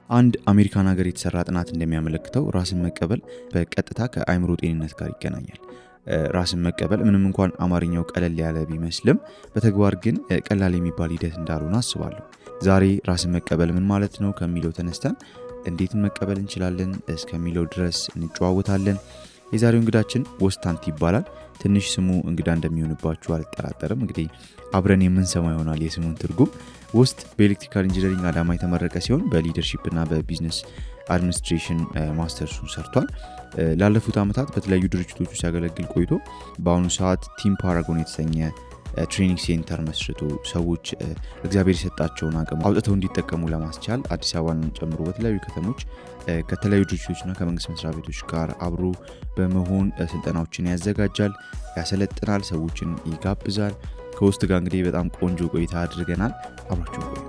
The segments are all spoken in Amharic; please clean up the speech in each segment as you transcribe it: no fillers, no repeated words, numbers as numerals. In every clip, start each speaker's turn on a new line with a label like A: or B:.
A: አንድ አሜሪካን ሀገር የተሰራ ጥናት እንደሚያመለክተው ራስን መቀበል በቀጥታ ከአእምሮ ጤንነት ጋር ይገናኛል። ራስን መቀበል ምንም እንኳን አማርኛው ቀለል ያለ ቢመስልም በተግባር ግን ቀላል የሚባል ሂደት እንዳልሆነ አስባለሁ። ዛሬ ራስን መቀበል ምን ማለት ነው ከሚለው ተነስተን እንዴት መቀበል እንችላለን እስከሚለው ድረስ እንጨዋወታለን። የዛሬው እንግዳችን ወስታንት ይባላል። ትንሽ ስሙ እንግዳ እንደሚሆንባችሁ አልጠራጠርም። እንግዲህ አብረን የምንሰማው ይሆናል የስሙን ትርጉም። ውስጥ በኤሌክትሪካል ኢንጂነሪንግ አዳማ የተመረቀ ሲሆን በሊደርሺፕ እና በቢዝነስ አድሚኒስትሬሽን ማስተርሱን ሰርቷል። ላለፉት ዓመታት በተለያዩ ድርጅቶች ውስጥ ሲያገለግል ቆይቶ በአሁኑ ሰዓት ቲም ፓራጎን የተሰኘ ትሬኒንግ ሴንተር መስርቶ ሰዎች እግዚአብሔር የሰጣቸውን አቅም አውጥተው እንዲጠቀሙ ለማስቻል አዲስ አበባን ጨምሮ በተለያዩ ከተሞች ከተለያዩ ድርጅቶችና ከመንግስት መስሪያ ቤቶች ጋር አብሮ በመሆን ስልጠናዎችን ያዘጋጃል፣ ያሰለጥናል፣ ሰዎችን ይጋብዛል። ከውስጥ ጋር እንግዲህ በጣም ቆንጆ ቆይታ አድርገናል። አብራችሁ ቆዩ።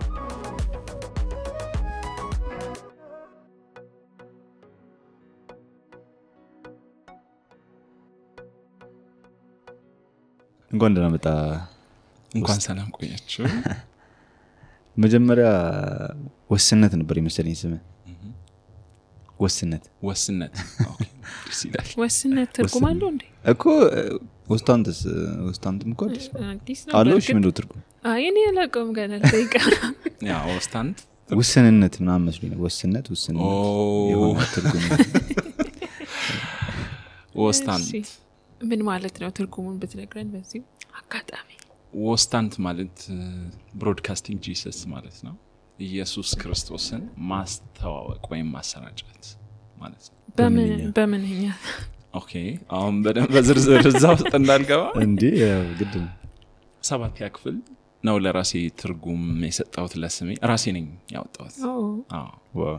A: እንኳን ደህና መጣ።
B: እንኳን ሰላም ቆያችሁ።
A: መጀመሪያ ወስነት ነበር የመሰለኝ ስምህ። ወስነት
B: ኦኬ ሲላል
C: ወስነት ትርጉም አለው እንዴ?
A: እኮ ወስታንትም እኮ
C: አዲስ ነው
A: አለው። እሺ ምንድነው ትርጉም?
C: አይ እኔ አላውቀውም ገና ጠይቀው።
B: ያ ወስታንት
A: ውስንነት ምናምን መስሎኝ ነው። ወስነት የሆነ ትርጉም
B: ወስታንት
C: ምን ማለት ነው? ትርጉሙን ብትነግረን በዚህ አጋጣሚ።
B: ወስታንት ማለት ብሮድካስቲንግ ጂሰስ ማለት ነው። ኢየሱስ ክርስቶስን ማስተዋወቅ ወይም ማሰራጨት ማለት ነው።
C: በምንኛ?
B: ኦኬ አሁን በደንብ በዝርዝር እዛው ውስጥ እንዳልገባ
A: እንዴ ግድ ነው።
B: 7ኛ ክፍል ነው ለራሴ ትርጉም የሰጠሁት ለስሜ ራሴ ነኝ ያወጣሁት።
A: ዋው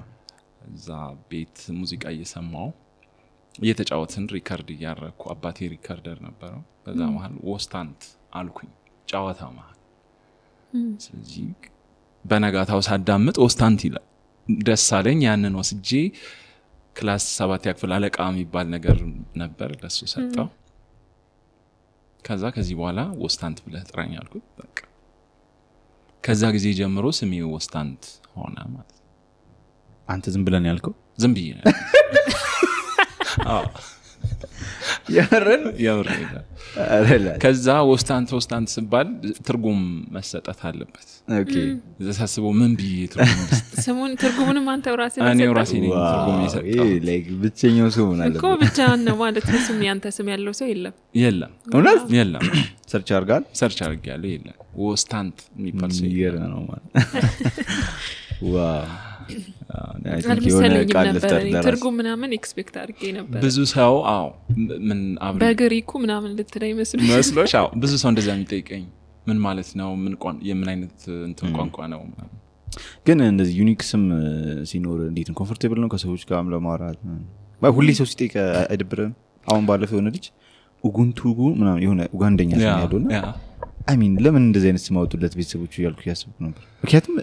B: እዛ ቤት ሙዚቃ እየሰማው እየተጫወትን ሪካርድ እያረኩ አባቴ ሪካርደር ነበረው። በዛ መሃል ወስታንት አልኩኝ ጫዋታ መሃል። ስለዚህ በነጋታው ሳዳምጥ ወስታንት ይላል ደስ አለኝ። ያንን ወስጄ ክላስ 7ኛ ክፍል አለቃ የሚባል ነገር ነበር ለሱ ሰጠው። ከዚህ በኋላ ወስታንት ብለህ ጥራኝ አልኩት። በቃ ከዛ ጊዜ ጀምሮ ስሜ ወስታንት ሆነ ማለት ነው።
A: አንተ ዝም ብለን ያልከው?
B: ዝም ብዬ ነው። ያወራኝ ከዛ ወስታንት ሲባል ትርጉም መሰጠት አለበት።
A: ኦኬ
B: ዘሳስበው ምን ብዬ ትርጉም
C: ስሙን ትርጉሙንም አንተው ራስህ
B: እኔ ራሴ ነኝ ትርጉም የሰጠው።
A: ላይክ ብቸኛው ስሙ ማለት
C: እኮ ብቻህን ነው ማለት ነው። ስም ያንተ ስም ያለው ሰው የለም።
A: እውነት
B: የለም።
A: ሰርች
B: አድርጋለሁ የለም። ወስታንት የሚባል ሰው
A: ይገርም ነው ማለት ዋው።
C: አልመሰለኝም ነበር ትርጉም ምናምን ኤክስፔክት አድርጌ ነበር።
B: ብዙ ሰው ምን አብረ
C: በግሪኩ ምናምን ልትለኝ
B: መስሎሽ? ብዙ ሰው እንደዛ የሚጠይቀኝ ምን ማለት ነው የምን አይነት እንትን ቋንቋ ነው።
A: ግን እንደዚህ ዩኒክ ስም ሲኖር እንዴት ነው ኮምፎርቴብል ነው ከሰዎች ጋር ለማውራት? ሁሌ ሰው ሲጠይቅ አይደብርም? አሁን ባለፈው የሆነ ልጅ ኡጉንቱጉ ምናምን የሆነ ኡጋንደኛ ስም ያለውና ለምን እንደዚህ አይነት ስም አወጡለት ቤተሰቦቹ እያልኩ ያስብኩ ነበር። ምክንያቱም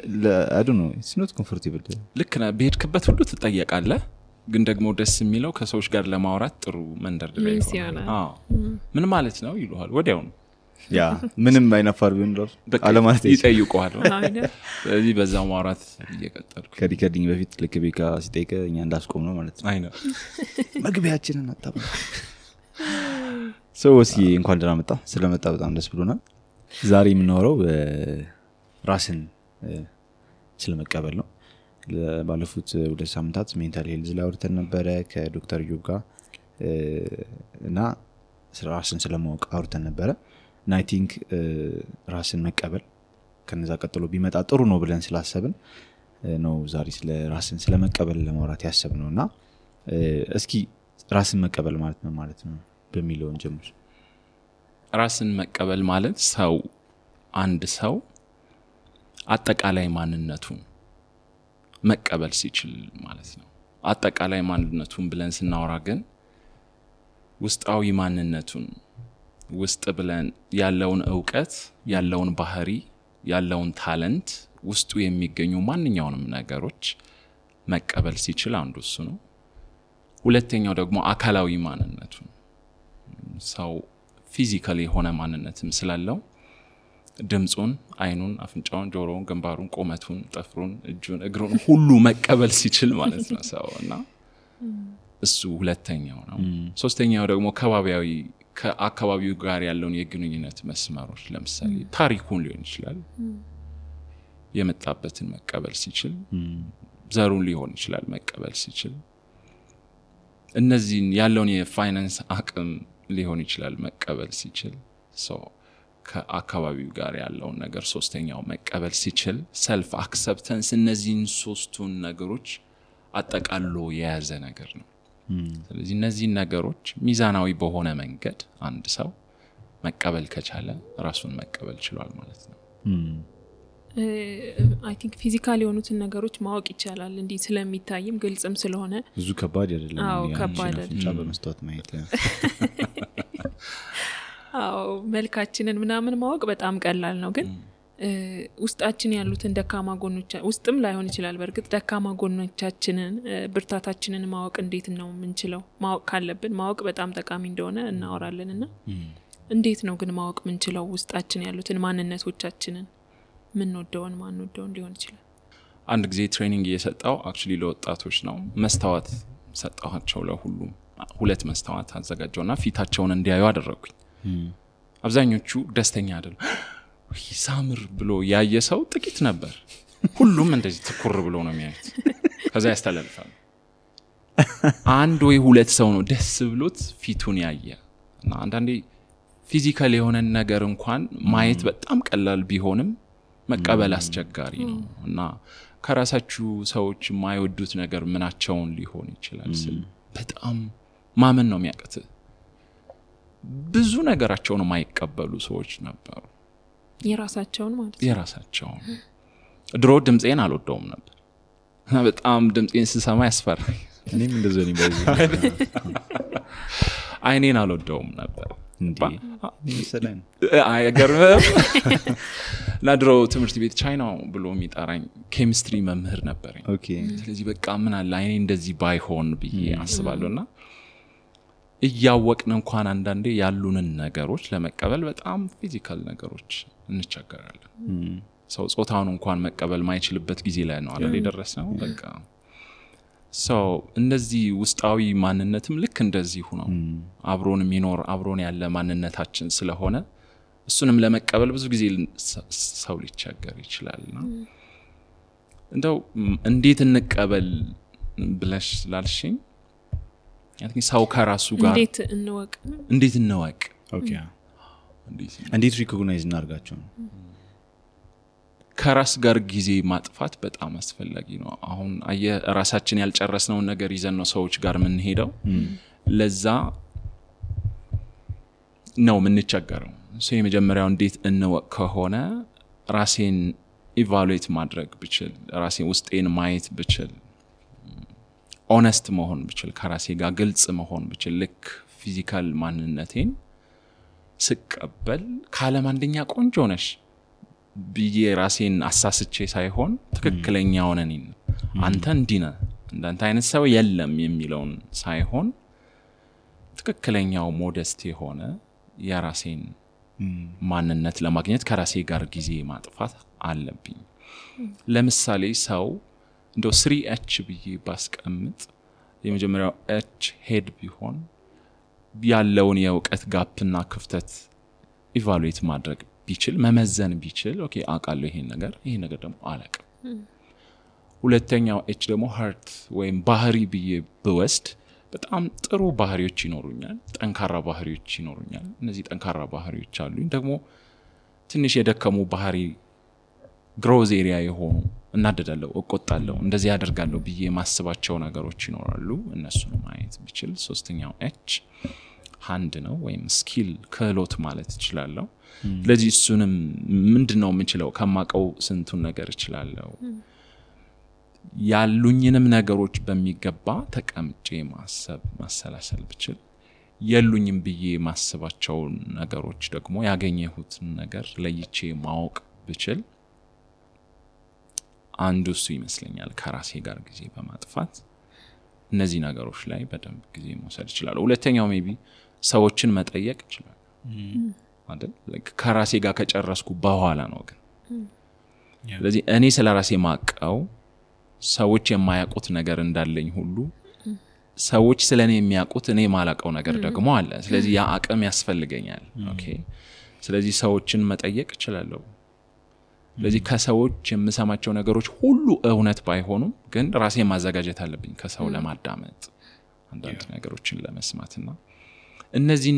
A: I don't know it's not comfortable።
B: ልክ ነህ። በሄድክበት ሁሉ ትጠየቃለህ። ግን ደግሞ ደስ የሚለው ከሰዎች ጋር ለማውራት ጥሩ መንደርደሪያ ይሆናል። ምን ማለት ነው ይሉሃል ወዲያው ነው።
A: ያ ምንም አይናፋር ቢሆን ራሱ አለማለት
B: ይጠይቁሃል። ስለዚህ በዛው ማውራት እየቀጠልኩ
A: ከሪከርዲንግ በፊት ልክ ቤካ ሲጠይቀ እኛ እንዳስቆም ነው ማለት ነው።
B: አይ ነው
A: መግቢያችንን አጣጣም ሰው እስኪ እንኳን ደህና መጣ። ስለመጣ በጣም ደስ ብሎናል። ዛሬ የምናወራው ራስን ስለመቀበል ነው። ባለፉት 2 ሳምንታት ሜንታል ሄልዝ ላይ አውርተን ነበረ ከዶክተር ዮብ ጋር እና ራስን ስለማወቅ አውርተን ነበረ እና አይ ቲንክ ራስን መቀበል ከነዛ ቀጥሎ ቢመጣ ጥሩ ነው ብለን ስላሰብን ነው ዛሬ ስለ ራስን ስለመቀበል ለማውራት ያሰብነውና እስኪ ራስን መቀበል ማለት ነው ማለት ነው በሚለው እንጀምር።
B: ራስን መቀበል ማለት አንድ ሰው አጠቃላይ ማንነቱን መቀበል ሲችል ማለት ነው። አጠቃላይ ማንነቱን ብለን ስናወራ ግን ውስጣዊ ማንነቱን ውስጥ ብለን ያለውን ዕውቀት፣ ያለውን ባህሪ፣ ያለውን ታለንት ውስጡ የሚገኙ ማንኛውንም ነገሮች መቀበል ሲችል አንዱ እሱ ነው። ሁለተኛው ደግሞ አካላዊ ማንነቱን ሰው ፊዚካሊ የሆነ ማንነትም ስላለው ድምጹን አይኑን አፍንጫውን ጆሮውን ግንባሩን ቁመቱን ጥፍሩን እጁን እግሩን ሁሉ መቀበል ሲችል ማለት ነው ሰውና እሱ ሁለተኛው ነው ሶስተኛው ደግሞ ከባቢያዊ ከአካባቢው ጋር ያለውን የግንኙነት መስመሮች ለምሳሌ ታሪኩን ሊሆን ይችላል የመጣበትን መቀበል ሲችል ዘሩን ሊሆን ይችላል መቀበል ሲችል እነዚህን ያለውን የፋይናንስ አቅም ሊሆን ይችላል መቀበል ሲችል ከአካባቢው ጋር ያለውን ነገር ሶስተኛው መቀበል ሲችል ሰልፍ አክሰፕታንስ እነዚህን ሶስቱን ነገሮች አጠቃሎ የያዘ ነገር ነው ስለዚህ እነዚህ ነገሮች ሚዛናዊ በሆነ መንገድ አንድ ሰው መቀበል ከቻለ ራሱን መቀበል ይችላል ማለት ነው
C: I think ፊዚካሊ የሆኑትን ነገሮች ማወቅ ይቻላል እንዴ ስለሚታይም ግልጽም ስለሆነ
A: ብዙ ከባድ አይደለም
C: ከባድ
A: አይደለም በመስተዋት ማየት
C: መልካችንን ምናምን ማወቅ በጣም ቀላል ነው ግን ውስጣችን ያሉትን ደካማ ጎኖች ውስጥም ላይሆን ይችላል በርግጥ ደካማ ጎኖቻችንን ብርታታችንን ማወቅ እንዴት ነው ምንችለው ማወቅ ካለብን ማወቅ በጣም ጠቃሚ እንደሆነ እናወራለንና እንዴት ነው ግን ማወቅ ምንችለው ውስጣችን ያሉትን ማንነቶቻችንን ምን ወደውን ማን ወደውን ሊሆን ይችላል
B: አንድ ጊዜ ትሬኒንግ እየሰጣው actually ለወጣቶች ነው መስታወት ሰጣቸው ለሁሉም ሁለት መስታወት አዘጋጀውና ፊታቸውን እንዲያዩ አደረኩኝ አብዛኞቹ ደስተኛ አይደሉ ይሳምር ብሎ ያየ ሰው ጥቂት ነበር ሁሉም እንደዚህ ትኩር ብሎ ነው የሚያዩት ከዛ ያስተላልፋል አንድ ወይ ሁለት ሰው ነው ደስ ብሎት ፊቱን ያየ እና አንዳንዴ ፊዚካል የሆነ ነገር እንኳን ማየት በጣም ቀላል ቢሆንም መቀበል አስቸጋሪ ነው እና ከራሳችሁ ሰዎች የማይወዱት ነገር ምናቸውን ሊሆን ይችላል በጣም ማመን ነው የሚያቀት ብዙ ነገራቸውን የማይቀበሉ ሰዎች ነበሩ
C: የራሳቸውን ማለት
B: የራሳቸውን ድሮ ድምጼን አልወደውም ነበር እና በጣም ድምጼን ስሰማ ያስፈራኝ
A: እኔም እንደዚህ ነው በዚህ
B: አይኔን አልወደውም ነበር
A: እንዴ ሰላም
B: አይገርምም ለድሮ ትምህርት ቤት ቻይናው ብሎ የሚጣራኝ ኬሚስትሪ መምህር ነበር
A: ኦኬ
B: ስለዚህ በቃ ምን አለ አይኔ እንደዚህ ባይሆን ብዬ አስባለሁና እያወቅን እንኳን አንዳንዴ ያሉንን ነገሮች ለመቀበል በጣም ፊዚካል ነገሮች እንቸገራለን ሰው ጾታውን እንኳን መቀበል ማይችልበት ጊዜ ላይ ነው አይደል የደረሰው በቃ እነዚህ ውስጣዊ ማንነትም ልክ እንደዚህ ሆኖ አብሮን የሚኖር አብሮን ያለ ማንነታችን ስለሆነ እሱንም ለመቀበል ብዙ ጊዜ ሰው ሊቸገር ይችላልና እንደው እንዴት እንቀበል ብለሽ ላልሽኝ ሰው ከራሱ ጋር እንዴት እንወቅ
A: ኦኬ እንዴት ሪኮግናይዝ እናርጋቸው
B: ከራስ ጋር ጊዜ ማጥፋት በጣም አስፈላጊ ነው አሁን ራሳችን ያልጨረስነው ነገር ይዘን ነው ሰዎች ጋር ምን ሄደው ለዛ ነው ምን ቸገረው የመጀመሪያው እንዴት እንወቅ ከሆነ ራሴን ኢቫሉዌት ማድረግ ብችል ራሴን ውስጤን ማየት ብችል ኦነስት መሆን ብችል ከራሴ ጋር ግልጽ መሆን ብችል ልክ ፊዚካል ማንነቴን ስቀበል ካለም አንደኛ ቆንጆ ነሽ ብዬ ራሴን አሳስቼ ሳይሆን ትክክለኛው ነኝ አንተ እንዲነ እንዳንተ አይነት ሰው የለም የሚለውን ሳይሆን ትክክለኛው ሞደስት የሆነ የራሴን ማንነት ለማግኘት ከራሴ ጋር ጊዜ ማጥፋት አለብኝ ለምሳሌ ሰው እንደው 3H ብዬ ባስቀምጥ የመጀመሪያው H ሄድ ቢሆን ያለውን የእውቀት ጋፕና ክፍተት ኢቫሉዌት ማድረግ ቢችል መመዘን ቢችል ኦኬ አቃለው ይሄን ነገር ደግሞ አላቅም ሁለተኛው H ደግሞ ሃርት ወይም ባህሪ ብዬ በወስድ በጣም ጥሩ ባህሪዎች ይኖሩኛል ጠንካራ ባህሪዎች ይኖሩኛል እነዚህ ጠንካራ ባህሪዎች አሉኝ ደግሞ ትንሽ የደከሙ ባህሪ ግሮዝ ኤሪያ የሆኑ እናደዳለሁ እቆጣለሁ እንደዚህ ያደርጋለሁ ብዬ ማስባቸው ነገሮች ይኖራሉ እነሱን ማየት ቢችል ሶስተኛው H ሃንድ ነው ወይም ስኪል ክህሎት ማለት ይችላልው ስለዚህ እሱንም ምንድነው የምንችለው ከማቀው ስንቱን ነገር ይችላልው ያሉኝንም ነገሮች በሚገባ ተቀምጬ ማሰላሰል ብችል የሉኝም ብዬ ማስባቸው ነገሮች ደግሞ ያገኘሁት ነገር ለይቼ ማወቅ ብችል አንዱ እሱ ይመስለኛል ከራሴ ጋር ጊዜ በማጥፋት እነዚህ ነገሮች ላይ በደንብ ጊዜ መውሰድ ይችላል ሁለተኛው ሜቢ ሰዎችን መጠየቅ ይችላል አይደል ከራሴ ጋር ከጨረስኩ በኋላ ነው ግን ስለዚህ እኔ ስለራሴ ማቀው ሰዎች የማያውቁት ነገር እንዳለኝ ሁሉ ሰዎች ስለኔ የሚያውቁት እኔ ማላቀው ነገር ደግሞ አለ ስለዚህ ያ አቅም ያስፈልገኛል ኦኬ ስለዚህ ሰዎችን መጠየቅ እችላለሁ ስለዚህ ከሰዎች የምሰማቸው ነገሮች ሁሉ እውነት ባይሆኑም ግን ራሴ ማዘጋጀት አለብኝ ከሰው ለማዳመጥ አንዳንድ ነገሮችን ለመስማትና እነዚህ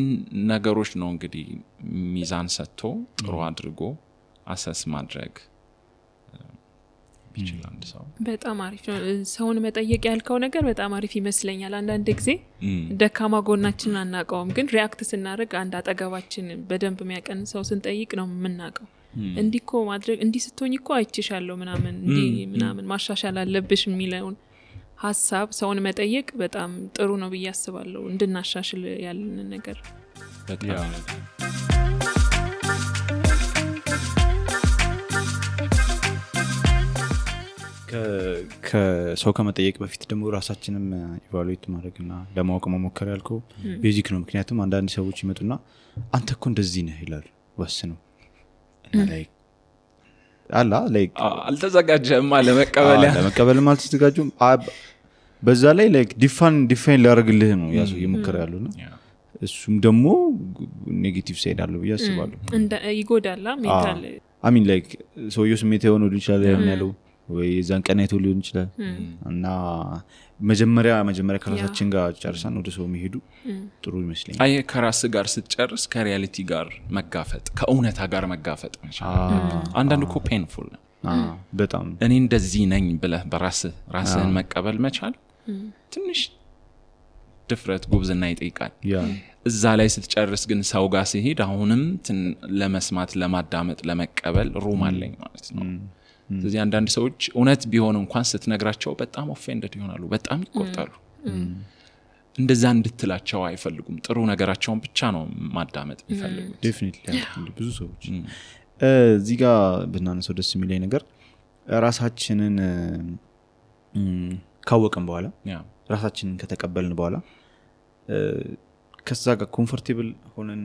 B: ነገሮች ነው እንግዲህ ሚዛን ሰጥቶ ጥሩ አድርጎ አሰስ ማድረግ ይችላል ሰው
C: በጣም አሪፍ ነው ሰውን መጠየቅ ያልከው ነገር በጣም አሪፍ ይመስለኛል አንዳንድ ጊዜ ደካማ ጎናችንን አናቀውም ግን ሪአክት ስናደርግ አንድ አጠገባችን በደንብ የሚያቀን ሰው ስንጠይቅ ነው የምናቀው እንዲኮ ማድረግ እንዲ ስትሆኝኮ አይችሻለሁ ምናምን ማሻሻል አለብሽ የሚለውን ሐሳብ ሰውን መጠየቅ በጣም ጥሩ ነው ብዬ አስባለሁ እንድናሻሽል ያለን ነገር
B: በጣም
D: ከሰው ከመጠየቅ በፊት ደግሞ ራሳችንም ኢቫሉዌት ማድረግና ለማወቅ መሞከር ያልከው ቤዚክ ነው ምክንያቱም አንዳንድ ሰዎች ይመጡና አንተ እኮ እንደዚህ ነህ ይላሉ ወስነው እና ላይክ አላ ላይክ
B: አልተዘጋጀህም
D: ለመቀበልም አልተዘጋጁም በዛ ላይ ላይክ ዲፋይን ሊያደርግልህ ነው ያሱ ይሞክር ያሉና እሱም ደግሞ ኔጌቲቭ ሳይድ አለው ብዬ አስባለሁ
C: እንደ ይጎዳላ ሜንታል
D: አይ ሚን ላይክ ሰውየው ስሜት የሆነው ይችላል ያለው ወይ ዛን ቀናይቶ ሊሆን ይችላል እና መጀመሪያ ከራሳችን ጋር ጨርሰን ወደ ሰው መሄዱ ጥሩ ይመስለኛል
B: አይ ከራስ ጋር ስትጨርስ ከሪያሊቲ ጋር መጋፈጥ ከእውነታ ጋር መጋፈጥ አንዳንድ እኮ ፔንፉል ነው
D: በጣም
B: እኔ እንደዚህ ነኝ ብለህ ራስህን መቀበል መቻል ትንሽ ድፍረት ጉብዝና ይጠይቃል እዛ ላይ ስትጨርስ ግን ሰው ጋር ሲሄድ አሁንም ለመስማት ለማዳመጥ ለመቀበል ሩም አለኝ ማለት ነው ስለዚህ አንዳንድ ሰዎች እውነት ቢሆን እንኳን ስትነግራቸው በጣም ኦፌንድድ ይሆናሉ በጣም ይቆጣሉ እንደዛ እንድትላቸው አይፈልጉም ጥሩ ነገራቸውን ብቻ ነው ማዳመጥ የሚፈልጉት
D: ዴፊኒትሊ ብዙ ሰዎች እዚህ ጋር ብናነሳው ደስ የሚለኝ ነገር ራሳችንን ካወቅን በኋላ ራሳችንን ከተቀበልን በኋላ ከዛ ጋር ኮምፎርቴብል ሆነን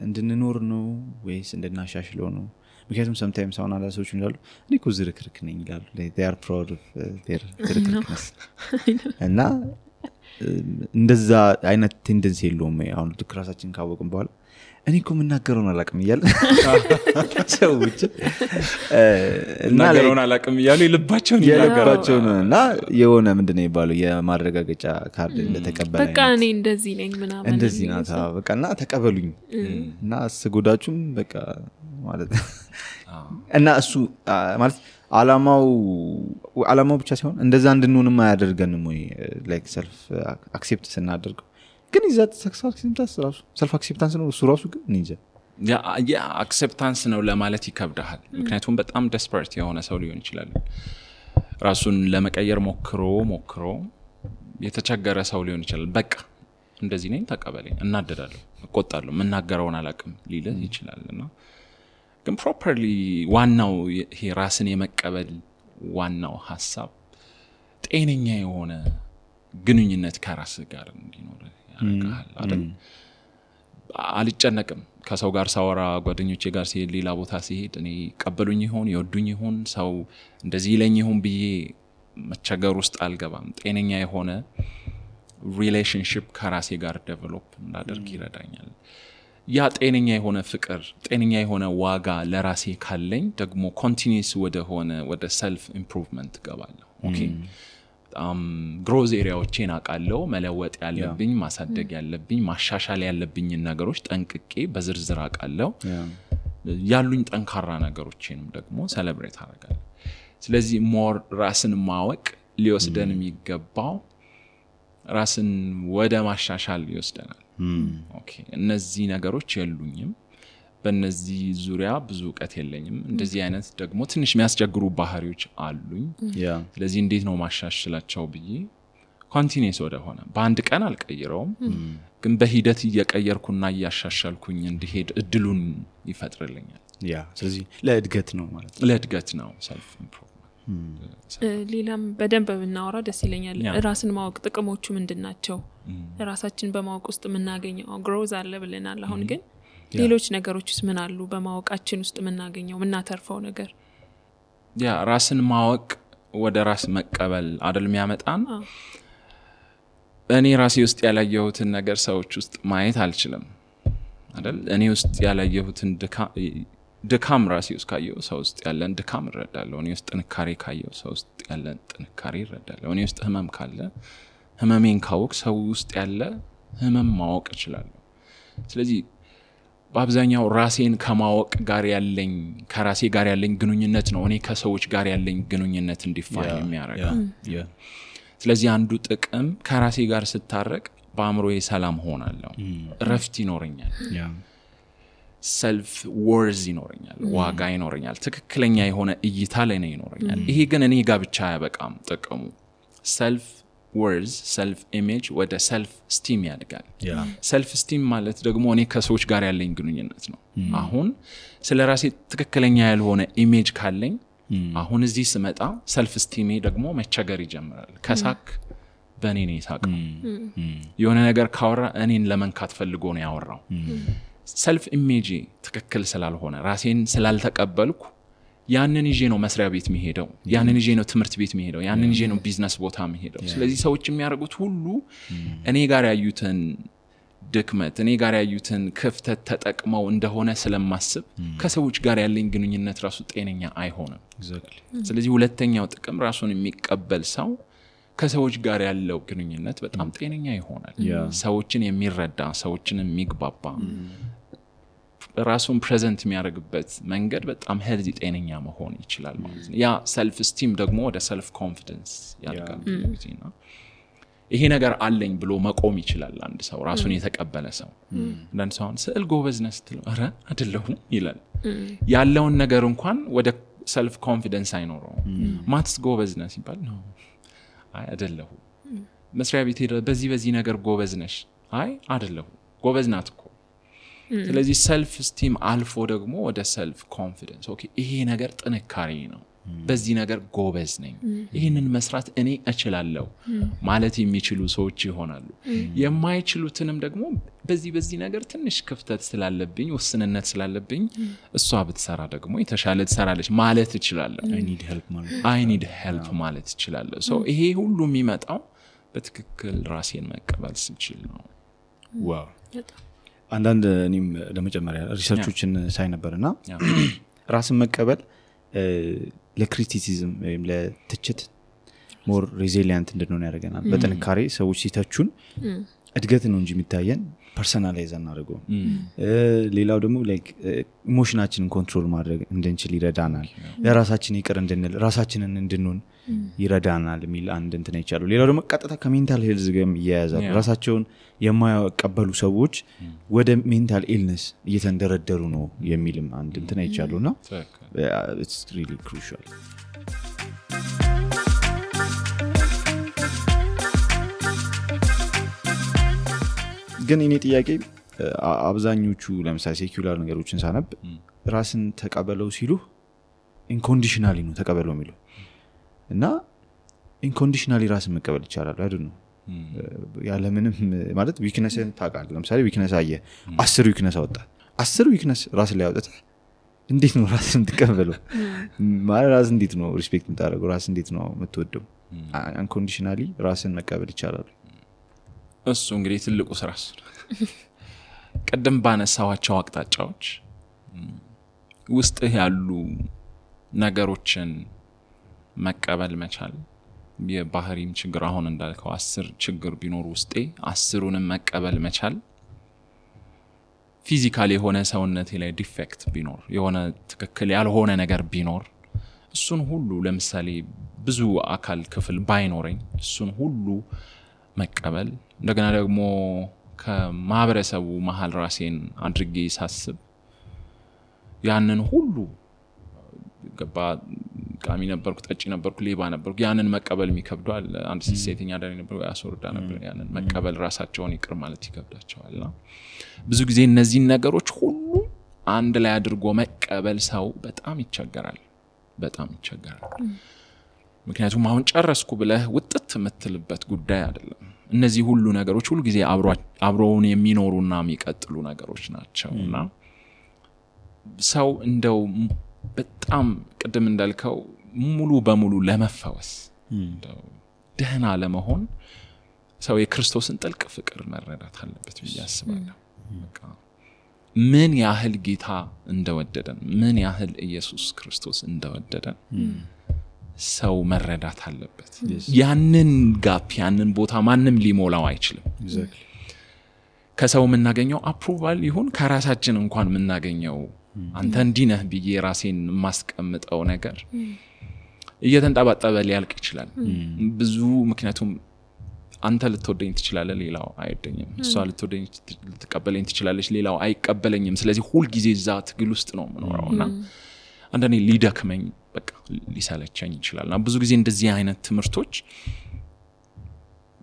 D: እንድንኖር ነው ወይስ እንድናሻሽለው ነው ምክንያቱም sometimes አሁን አንዳንድ ሰዎች ይላሉ እኔ እኮ ዝርክርክ ነኝ ይላሉ they are proud of their ዝርክርክነስ እና እንደዛ አይነት ቴንደንሲ የለውም አሁን ራሳችንን ካወቅን በኋላ እኔ እኮ ምናገረውን አላቅም እያለ ሰዎች
B: እናገረውን አላቅም እያሉ ይልባቸውን
D: እና የሆነ ምንድነው የሚባለው የማረጋገጫ ካርድ እንደተቀበለ
C: በቃ እኔ እንደዚህ ነኝ ምናምን
D: እንደዚህ ናታ በቃና ተቀበሉኝ እና አስጎዳችሁም በቃ ማለት እና እሱ ማለት አላማው ብቻ ሲሆን እንደዛ እንድንሆንም አያደርገንም ወይ ላይክ ሰልፍ አክሴፕት ስናደርገው ግን ይዛት ሰልፍ አክሴፕታንስ ነው እሱ ራሱ ግን እንጂ
B: ያ አክሴፕታንስ ነው ለማለት ይከብዳል ምክንያቱም በጣም ዴስፐሬት የሆነ ሰው ሊሆን ይችላል ራሱን ለመቀየር ሞክሮ የተቸገረ ሰው ሊሆን ይችላል በቃ እንደዚህ ነኝ ተቀበለኝ እናደዳለሁ እቆጣለሁ መናገረውን አላቅም ሊልህ ይችላልና ግን ፕሮፐርሊ ዋናው ይሄ ራስን የመቀበል ዋናው ሐሳብ ጤነኛ የሆነ ግንኙነት ከራስ ጋር እንዲኖር ያደርጋል አይደል አልጨነቅም ከሰው ጋር ሳወራ ጓደኞቼ ጋር ሲሄድ ሌላ ቦታ ሲሄድ እኔ ቀበሉኝ ይሆን ይወዱኝ ይሆን ሰው እንደዚህ ይለኝ ይሆን ብዬ መቸገር ውስጥ አልገባም ጤነኛ የሆነ ሪሌሽንሺፕ ከራሴ ጋር ዴቨሎፕ እንዳደርግ ይረዳኛል ያ ጤነኛ የሆነ ፍቅር ጤነኛ የሆነ ዋጋ ለራሴ ካለኝ ደግሞ ኮንቲኒዩስ ወደ ሰልፍ ኢምፕሩቭመንት ገባለሁ ኦኬ ግሮዝ ኤሪያዎችን አቃለው መለወጥ ያለብኝ ማሳደግ ያለብኝ ማሻሻል ያለብኝ ነገሮች ጠንቅቄ በዝርዝር አቃለው ያሉኝ ጠንካራ ነገሮችንም ደግሞ ሴሌብሬት አደርጋለሁ ስለዚህ ሞር ራስን ማወቅ ሊወስደን የሚገባው ራስን ወደ ማሻሻል ይወስደናል ኦኬ እነዚህ ነገሮች የሉኝም በእነዚህ ዙሪያ ብዙ ዕውቀት የለኝም እንደዚህ አይነት ደግሞ ትንሽ የሚያስቸግሩ ባህሪዎች አሉኝ ስለዚህ እንዴት ነው ማሻሻላቸው ብዬ ኮንቲኒዩስ ወደሆነ በአንድ ቀን አልቀይረውም ግን በሂደት እየቀየርኩና እያሻሻልኩኝ እንዲሄድ እድሉን ይፈጥርልኛል
D: ስለዚህ ለእድገት ነው ማለት
B: ለእድገት ነው ሰልፍ ኢምፕሩቭመንት
C: ሌላም በደንብ ብናወራ ደስ ይለኛል። ራስን ማወቅ ጥቅሞቹ ምንድናቸው? ራሳችን በማወቅ ውስጥ የምናገኘው ግሮዝ አለ ብለናል። አሁን ግን ሌሎች ነገሮችስ ምን አሉ? በማወቃችን ውስጥ የምናገኘው የምናተርፈው ነገር?
B: ያ ራስን ማወቅ ወደ ራስ መቀበል አይደል የሚያመጣን? እኔ ራሴ ውስጥ ያላየሁትን ነገር ሰዎች ውስጥ ማየት አልችልም አይደል? እኔ ውስጥ ያላየሁትን ድካም ራሴ ውስጥ ካየው ሰው ውስጥ ያለን ድካም እረዳለሁ። እኔ ውስጥ ጥንካሬ ካየው ሰው ውስጥ ያለን ጥንካሬ እረዳለሁ። እኔ ውስጥ ህመም ካለ ህመሜን ካወቅ ሰው ውስጥ ያለ ህመም ማወቅ እችላለሁ። ስለዚህ በአብዛኛው ራሴን ከማወቅ ጋር ያለኝ ከራሴ ጋር ያለኝ ግንኙነት ነው እኔ ከሰዎች ጋር ያለኝ ግንኙነት እንዲፋኝ የሚያደርገው። ስለዚህ አንዱ ጥቅም ከራሴ ጋር ስታረቅ በአእምሮዬ ሰላም ሆናለሁ፣ እረፍት ይኖረኛል፣ ሰልፍ ወርዝ ይኖረኛል፣ ዋጋ ይኖረኛል፣ ትክክለኛ የሆነ እይታ ላይ ነው ይኖረኛል። ይሄ ግን እኔ ጋር ብቻ አያበቃም ጥቅሙ። ሰልፍ ወርዝ ሰልፍ ኢሜጅ ወደ ሰልፍ ስቲም ያድጋል። ሰልፍ ስቲም ማለት ደግሞ እኔ ከሰዎች ጋር ያለኝ ግንኙነት ነው። አሁን ስለ ራሴ ትክክለኛ ያልሆነ ኢሜጅ ካለኝ አሁን እዚህ ስመጣ ሰልፍ ስቲሜ ደግሞ መቸገር ይጀምራል። ከሳክ በእኔ ነው የሳቀው። የሆነ ነገር ካወራ እኔን ለመንካት ፈልጎ ነው ያወራው። ሰልፍ ኢሜጅ ትክክል ስላልሆነ ራሴን ስላልተቀበልኩ ያንን ይዤ ነው መስሪያ ቤት የሚሄደው፣ ያንን ይዤ ነው ትምህርት ቤት የሚሄደው፣ ያንን ይዤ ነው ቢዝነስ ቦታ የሚሄደው። ስለዚህ ሰዎች የሚያደርጉት ሁሉ እኔ ጋር ያዩትን ድክመት እኔ ጋር ያዩትን ክፍተት ተጠቅመው እንደሆነ ስለማስብ ከሰዎች ጋር ያለኝ ግንኙነት ራሱ ጤነኛ አይሆንም። ስለዚህ ሁለተኛው ጥቅም ራሱን የሚቀበል ሰው ከሰዎች ጋር ያለው ግንኙነት በጣም ጤነኛ ይሆናል። ሰዎችን የሚረዳ ሰዎችን የሚግባባ ራሱን ፕሬዘንት የሚያደርግበት መንገድ በጣም ሄልዚ ጤነኛ መሆን ይችላል ማለት ነው። ያ ሰልፍ ስቲም ደግሞ ወደ ሰልፍ ኮንፊደንስ ያድጋል ጊዜና ይሄ ነገር አለኝ ብሎ መቆም ይችላል አንድ ሰው ራሱን የተቀበለ ሰው። አንድ ሰው ስዕል ጎበዝ ነህ ስትለው አረ አይደለሁም ይላል። ያለውን ነገር እንኳን ወደ ሰልፍ ኮንፊደንስ አይኖረው። ማትስ ጎበዝ ነህ ሲባል ነው አይ አይደለሁም። መስሪያ ቤት ሄደ በዚህ ነገር ጎበዝ ነሽ አይ አይደለሁም ጎበዝ ናት እኮ። ስለዚህ ሰልፍ ስቲም አልፎ ደግሞ ወደ ሰልፍ ኮንፊደንስ ኦኬ ይሄ ነገር ጥንካሬ ነው፣ በዚህ ነገር ጎበዝ ነኝ፣ ይሄንን መስራት እኔ እችላለሁ ማለት የሚችሉ ሰዎች ይሆናሉ። የማይችሉትንም ደግሞ በዚህ ነገር ትንሽ ክፍተት ስላለብኝ ውስንነት ስላለብኝ እሷ ብትሰራ ደግሞ የተሻለ ትሰራለች ማለት እችላለሁ። I need help ማለት እችላለሁ። ሶ ይሄ ሁሉ የሚመጣው በትክክል ራሴን መቀበል ስችል ነው።
D: ዋው አንዳንድ እኔም ለመጨመሪያ ሪሰርቾችን ሳይ ነበርና ራስን መቀበል ለክሪቲሲዝም ወይም ለትችት ሞር ሬዚሊየንት እንድንሆን ያደርገናል። በጥንካሬ ሰዎች ሲተቹን እድገት ነው እንጂ የሚታየን ፐርሰናላይዝ አናደርገው። ሌላው ደግሞ ላይክ ኢሞሽናችንን ኮንትሮል ማድረግ እንድንችል ይረዳናል። ለራሳችን ይቅር እንድንል ራሳችንን እንድንሆን ይረዳናል የሚል አንድ እንትን ይቻላል። ሌላው ደግሞ ቀጥታ ከሜንታል ሄልዝ ጋር ይያያዛል። ራሳቸውን የማይቀበሉ ሰዎች ወደ ሜንታል ኢልነስ እየተንደረደሩ ነው የሚልም አንድ እንትን ይቻላልና it's really crucial። ግን እኔ ጥያቄ አብዛኞቹ ለምሳሌ ሴኩላር ነገሮችን ሳነብ ራስን ተቀበለው ሲሉ ኢንኮንዲሽናሊ ነው ተቀበለው የሚለው እና ኢንኮንዲሽናሊ ራስን መቀበል ይቻላል አይደል ነው ያለ ምንም ማለት ዊክነስን ታውቃለህ። ለምሳሌ ዊክነስ አየ 10 ዊክነስ አወጣ 10 ዊክነስ ራስ ላይ አወጣ እንዴት ነው ራስን ተቀበለው ማለት ራስ እንዴት ነው ሪስፔክት የምታደርገው ራስ እንዴት ነው የምትወደው? አንኮንዲሽናሊ ራስን መቀበል ይቻላል።
B: እሱ እንግዲህ ትልቁ ስራ ቀደም ባነሳዋቸው አቅጣጫዎች ውስጥ ያሉ ነገሮችን መቀበል መቻል የባህሪም ችግር አሁን እንዳልከው 10 ችግር ቢኖር ውስጤ 10ንም መቀበል መቻል ፊዚካሊ የሆነ ሰውነቴ ላይ ዲፌክት ቢኖር የሆነ ትክክል ያልሆነ ነገር ቢኖር እሱን ሁሉ ለምሳሌ ብዙ አካል ክፍል ባይኖረኝ እሱን ሁሉ መቀበል እንደገና ደግሞ ከማህበረሰቡ መሃል ራሴን አድርጌ ሳስብ ያንን ሁሉ ገባ ቃሚ ነበርኩ ጠጪ ነበርኩ ሌባ ነበርኩ ያንን መቀበል የሚከብደዋል። አንድ ሴተኛ አዳሪ ነበርኩ ያስወርዳ ነበር ያንን መቀበል ራሳቸውን ይቅር ማለት ይከብዳቸዋልና ብዙ ጊዜ እነዚህ ነገሮች ሁሉ አንድ ላይ አድርጎ መቀበል ሰው በጣም ይቸገራል። ምክንያቱም አሁን ጨረስኩ ብለህ ውጥት የምትልበት ጉዳይ አይደለም። እነዚህ ሁሉ ነገሮች ሁሉ ጊዜ አብረውን የሚኖሩና የሚቀጥሉ ነገሮች ናቸውና ሰው እንደው በጣም ቅድም እንዳልከው ሙሉ በሙሉ ለመፈወስ እንደው ደህና ለመሆን ሰው የክርስቶስን ጥልቅ ፍቅር መረዳት አለበት ብዬ አስባለሁ። በቃ ምን ያህል ጌታ እንደወደደን ምን ያህል ኢየሱስ ክርስቶስ እንደወደደን ሰው መረዳት አለበት። ያንን ጋፕ ያንን ቦታ ማንም ሊሞላው አይችልም። ከሰው የምናገኘው አፕሩቫል ይሁን ከራሳችን እንኳን የምናገኘው አንተ እንዲህ ነህ ብዬ ራሴን ማስቀምጠው ነገር እየተንጣባጣበ ሊያልቅ ይችላል ብዙ። ምክንያቱም አንተ ልትወደኝ ትችላለህ፣ ሌላው አይወደኝም። እሷ ልትቀበለኝ ትችላለች፣ ሌላው አይቀበለኝም። ስለዚህ ሁሉ ጊዜ እዛ ትግል ውስጥ ነው የምኖረውና አንዳንዴ ሊደክመኝ በቃ ሊሰለቸኝ ይችላልና ብዙ ጊዜ እንደዚህ አይነት ትምህርቶች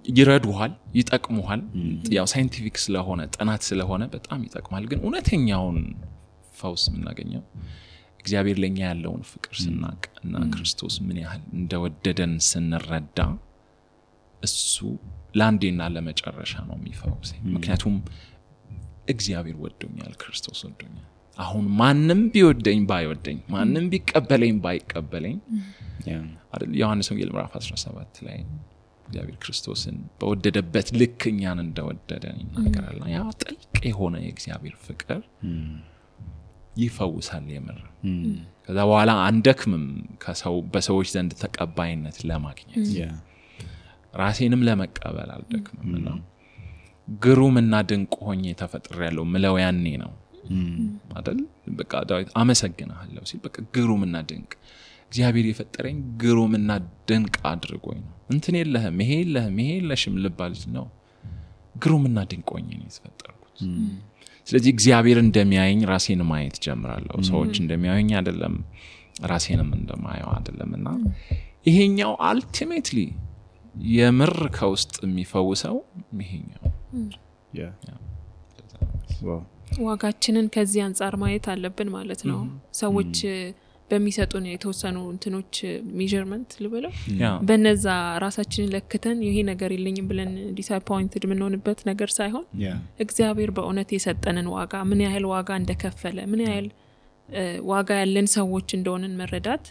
B: ይረዱሃል፣ ይጠቅሙሃል። ያው ሳይንቲፊክ ስለሆነ ጥናት ስለሆነ በጣም ይጠቅማል። ግን እውነተኛውን ፈውስ የምናገኘው እግዚአብሔር ለኛ ያለውን ፍቅር ስናቅ እና ክርስቶስ ምን ያህል እንደወደደን ስንረዳ እሱ ለአንዴና ለመጨረሻ ነው የሚፈውሰኝ። ምክንያቱም እግዚአብሔር ወዶኛል፣ ክርስቶስ ወዶኛል። አሁን ማንም ቢወደኝ ባይወደኝ፣ ማንም ቢቀበለኝ ባይቀበለኝ አይደል ዮሐንስ ወንጌል ምዕራፍ 17 ላይ እግዚአብሔር ክርስቶስን በወደደበት ልክ እኛን እንደወደደን ይናገራል። ያ ጥልቅ የሆነ የእግዚአብሔር ፍቅር ይፈውሳል የምር። ከዛ በኋላ አንደክምም በሰዎች ዘንድ ተቀባይነት ለማግኘት ራሴንም ለመቀበል አልደክምምና ግሩምና ድንቅ ሆኜ ተፈጥሬያለሁ ምለው ያኔ ነው አይደል። በቃ ዳዊት አመሰግናለሁ ሲል በቃ ግሩምና ድንቅ እግዚአብሔር የፈጠረኝ ግሩምና ድንቅ አድርጎኝ ነው። እንትን የለህም ይሄ የለህም ይሄ የለሽም ልባል ነው። ግሩምና ድንቅ ሆኜ ነው የተፈጠርኩት። ስለዚህ እግዚአብሔር እንደሚያየኝ ራሴን ማየት ጀምራለሁ። ሰዎች እንደሚያዩኝ አይደለም፣ ራሴንም እንደማየው አይደለምና ይሄኛው አልቲሜትሊ የምር ከውስጥ የሚፈውሰው ይሄኛው
C: ዋጋችንን ከዚህ አንፃር ማየት አለብን ማለት ነው። ሰዎች በሚሰጡን የተወሰኑ እንትኖች ሜዠርመንት ልበለው በነዛ ራሳችንን ለክተን ይሄ ነገር የለኝም ብለን ዲስአፖይንትድ ምንሆንበት ነገር ሳይሆን እግዚአብሔር በእውነት የሰጠንን ዋጋ ምን ያህል ዋጋ እንደከፈለ ምን ያህል ዋጋ ያለን ሰዎች እንደሆነን መረዳት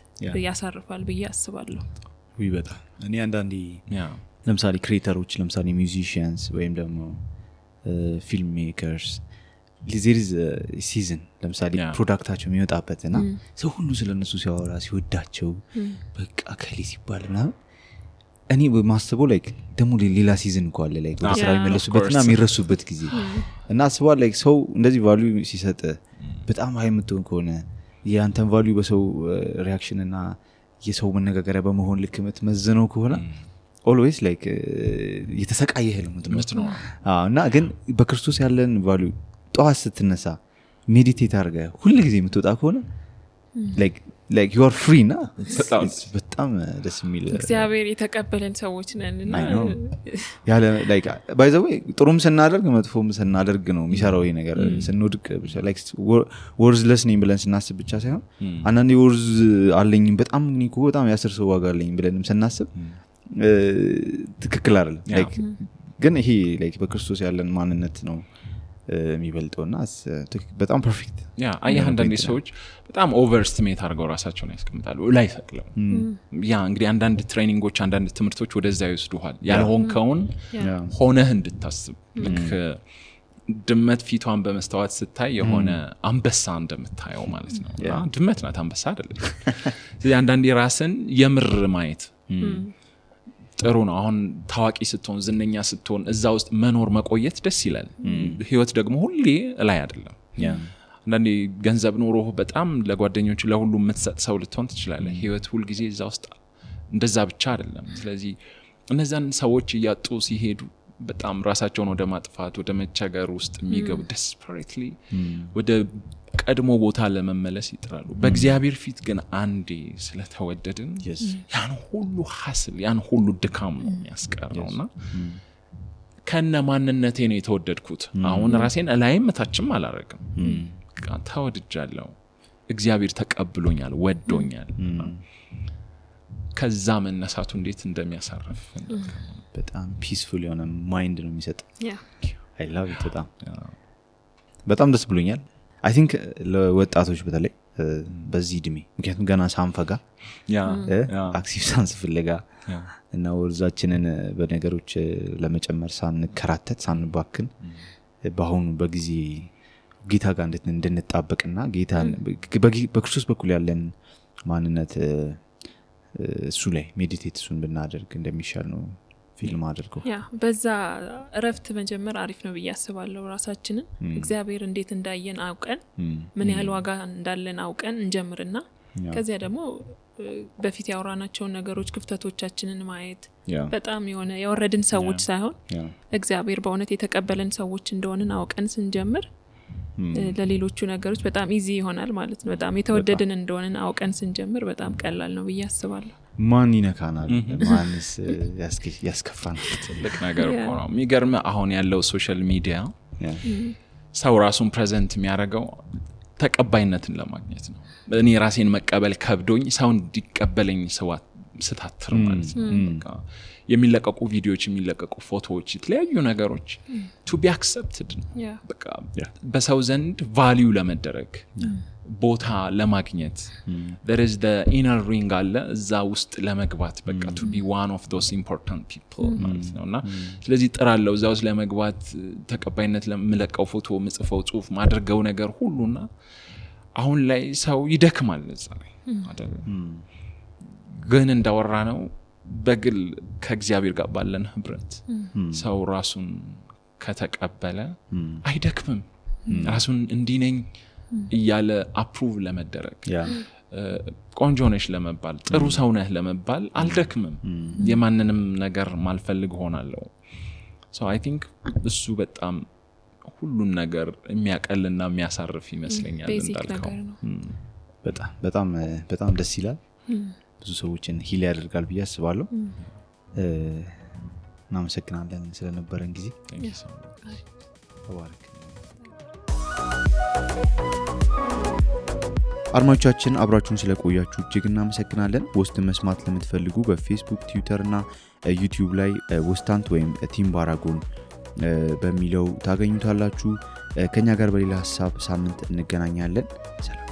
C: ያሳርፋል ብዬ አስባለሁ።
D: በጣም እኔ አንዳንዴ ለምሳሌ ክሬተሮች ለምሳሌ ሚውዚሺያንስ ወይም ደግሞ ፊልም ሜከርስ ሊዘሪዝ ሲዝን ለምሳሌ ፕሮዳክታቸው የሚወጣበትና ሰው ሁሉ ስለነሱ ሲያወራ ሲወዳቸው በቃ ከሌ ሲባል ምናምን እኔ በማስበው ላይክ ደግሞ ሌላ ሲዝን እኮ አለ ላይክ ወደ ስራ የሚመለሱበትና የሚረሱበት ጊዜ እና አስበው ላይክ ሰው እንደዚህ ቫልዩ ሲሰጥ በጣም ሃይ የምትሆን ከሆነ ያንተን ቫልዩ በሰው ሪአክሽን እና የሰው መነጋገሪያ በመሆን ልክ የምትመዝነው ከሆነ ኦልዌይስ ላይክ የተሰቃየህ ነው እና ግን በክርስቶስ ያለን ቫልዩ ጧት ስትነሳ ሜዲቴት አድርገህ ሁሉ ጊዜ የምትወጣ ከሆነ like you are free ና በጣም ደስ የሚል
C: እግዚአብሔር የተቀበለን ሰዎች ነንና
D: ያለ like by the way ጥሩም ስናደርግ መጥፎም ስናደርግ ነው የሚሰራው ይሄ ነገር። ስንወድቅ like worthless ነኝ ብለን ስናስብ ብቻ ሳይሆን አንዳንዴ worth አለኝ በጣም እኮ በጣም ያስር ሰው ዋጋ አለኝ ብለንም ስናስብ ትክክል አይደለም። like ግን ይሄ like በክርስቶስ ያለን ማንነት ነው የሚበልጠውና በጣም ፐርፌክት
B: አየህ አንዳንድ ሰዎች በጣም ኦቨርስቲሜት አድርገው ራሳቸውን ያስቀምጣሉ ላይ ሰቅለው እንግዲህ አንዳንድ ትሬኒንጎች አንዳንድ ትምህርቶች ወደዛ ይወስዱሃል ያልሆንከውን ሆነህ እንድታስብ ልክ ድመት ፊቷን በመስተዋት ስታይ የሆነ አንበሳ እንደምታየው ማለት ነው። ድመት ናት አንበሳ አይደለም። ስለዚህ አንዳንዴ ራስን የምር ማየት ጥሩ ነው። አሁን ታዋቂ ስትሆን ዝነኛ ስትሆን እዛ ውስጥ መኖር መቆየት ደስ ይላል። ህይወት ደግሞ ሁሌ ላይ አይደለም። አንዳንዴ ገንዘብ ኖሮ በጣም ለጓደኞች ለሁሉ የምትሰጥ ሰው ልትሆን ትችላለህ። ህይወት ሁሉ ጊዜ እዛ ውስጥ እንደዛ ብቻ አይደለም። ስለዚህ እነዛን ሰዎች እያጡ ሲሄዱ በጣም ራሳቸውን ወደ ማጥፋት ወደ መቸገር ውስጥ የሚገቡ desperately ወደ ቀድሞ ቦታ ለመመለስ ይጥራሉ። በእግዚአብሔር ፊት ግን አንዴ ስለተወደድን ያን ሁሉ ሐስል ያን ሁሉ ድካም ነው የሚያስቀረውና ከነ ማንነቴ ነው የተወደድኩት። አሁን ራሴን ላይም ታችም አላረግም። ተወድጃለሁ። እግዚአብሔር ተቀብሎኛል፣ ወዶኛል። ከዛ መነሳቱ እንዴት እንደሚያሳርፍ
D: በጣም ፒስፉል የሆነ ማይንድ ነው የሚሰጥ I love it በጣም ደስ ብሎኛል I think ለወጣቶች በተለይ በዚህ እድሜ ምክንያቱም ገና ሳንፈጋ አክቲቭ ሳንስ ፍለጋ እና ወርዛችንን በነገሮች ለመጨመር ሳንከራተት ሳንባክን በአሁኑ በጊዜ ጌታ ጋር እንድንጣበቅና ጌታ በክርስቶስ በኩል ያለን ማንነት እሱ ላይ ሜዲቴት እሱን ብናደርግ እንደሚሻል ነው ፊልም አድርገው
C: በዛ እረፍት መጀመር አሪፍ ነው ብዬ አስባለሁ ራሳችንን እግዚአብሔር እንዴት እንዳየን አውቀን ምን ያህል ዋጋ እንዳለን አውቀን እንጀምርና ከዚያ ደግሞ በፊት ያወራናቸውን ነገሮች ክፍተቶቻችንን ማየት በጣም የሆነ ያወረድን ሰዎች ሳይሆን እግዚአብሔር በእውነት የተቀበለን ሰዎች እንደሆነን አውቀን ስንጀምር ለሌሎቹ ነገሮች በጣም ኢዚ ይሆናል ማለት ነው በጣም የተወደድን እንደሆነን አውቀን ስንጀምር በጣም ቀላል ነው ብዬ አስባለሁ
D: ማን ይነካናል ማንስ ያስከፋናል
B: ትልቅ ነገር እኮ ነው የሚገርም አሁን ያለው ሶሻል ሚዲያ ሰው ራሱን ፕሬዘንት የሚያደርገው ተቀባይነትን ለማግኘት ነው እኔ ራሴን መቀበል ከብዶኝ ሰው እንዲቀበለኝ ስታትር ማለት ነው የሚለቀቁ ቪዲዮዎች የሚለቀቁ ፎቶዎች የተለያዩ ነገሮች to be accepted በቃ በሰው ዘንድ ቫልዩ ለመደረግ ቦታ ለማግኘት there is the inner ring አለ እዛ ውስጥ ለመግባት በቃ to be one of those important people ማለት ነውና ስለዚህ ጥራለው እዛ ውስጥ ለመግባት ተቀባይነት ለምለቀው ፎቶ ምጽፈው ጽሁፍ ማድረገው ነገር ሁሉና አሁን ላይ ሰው ይደክማል እዛ ላይ አይደል ግን እንዳወራ ነው በግል ከእግዚአብሔር ጋር ባለን ህብረት ሰው ራሱን ከተቀበለ አይደክምም ራሱን እንዲነኝ እያለ አፕሩቭ ለመደረግ ቆንጆ ነሽ ለመባል ጥሩ ሰው ነህ ለመባል አልደክምም የማንንም ነገር ማልፈልግ ሆናለሁ so I think እሱ በጣም ሁሉን ነገር የሚያቀልና የሚያሳርፍ ይመስለኛል እንዳልከው
D: በጣም ደስ ይላል ብዙ ሰዎችን ሂል ያደርጋል ብዬ አስባለሁ እናመሰግናለን ስለነበረን ጊዜ ተባረክ
A: አድማጮቻችን አብራችሁን ስለቆያችሁ እጅግ እናመሰግናለን ወስትን መስማት ለምትፈልጉ በፌስቡክ ትዊተር እና ዩቲዩብ ላይ ወስታንት ወይም ቲም ባራጎን በሚለው ታገኙታላችሁ ከኛ ጋር በሌላ ሐሳብ ሳምንት እንገናኛለን ሰላም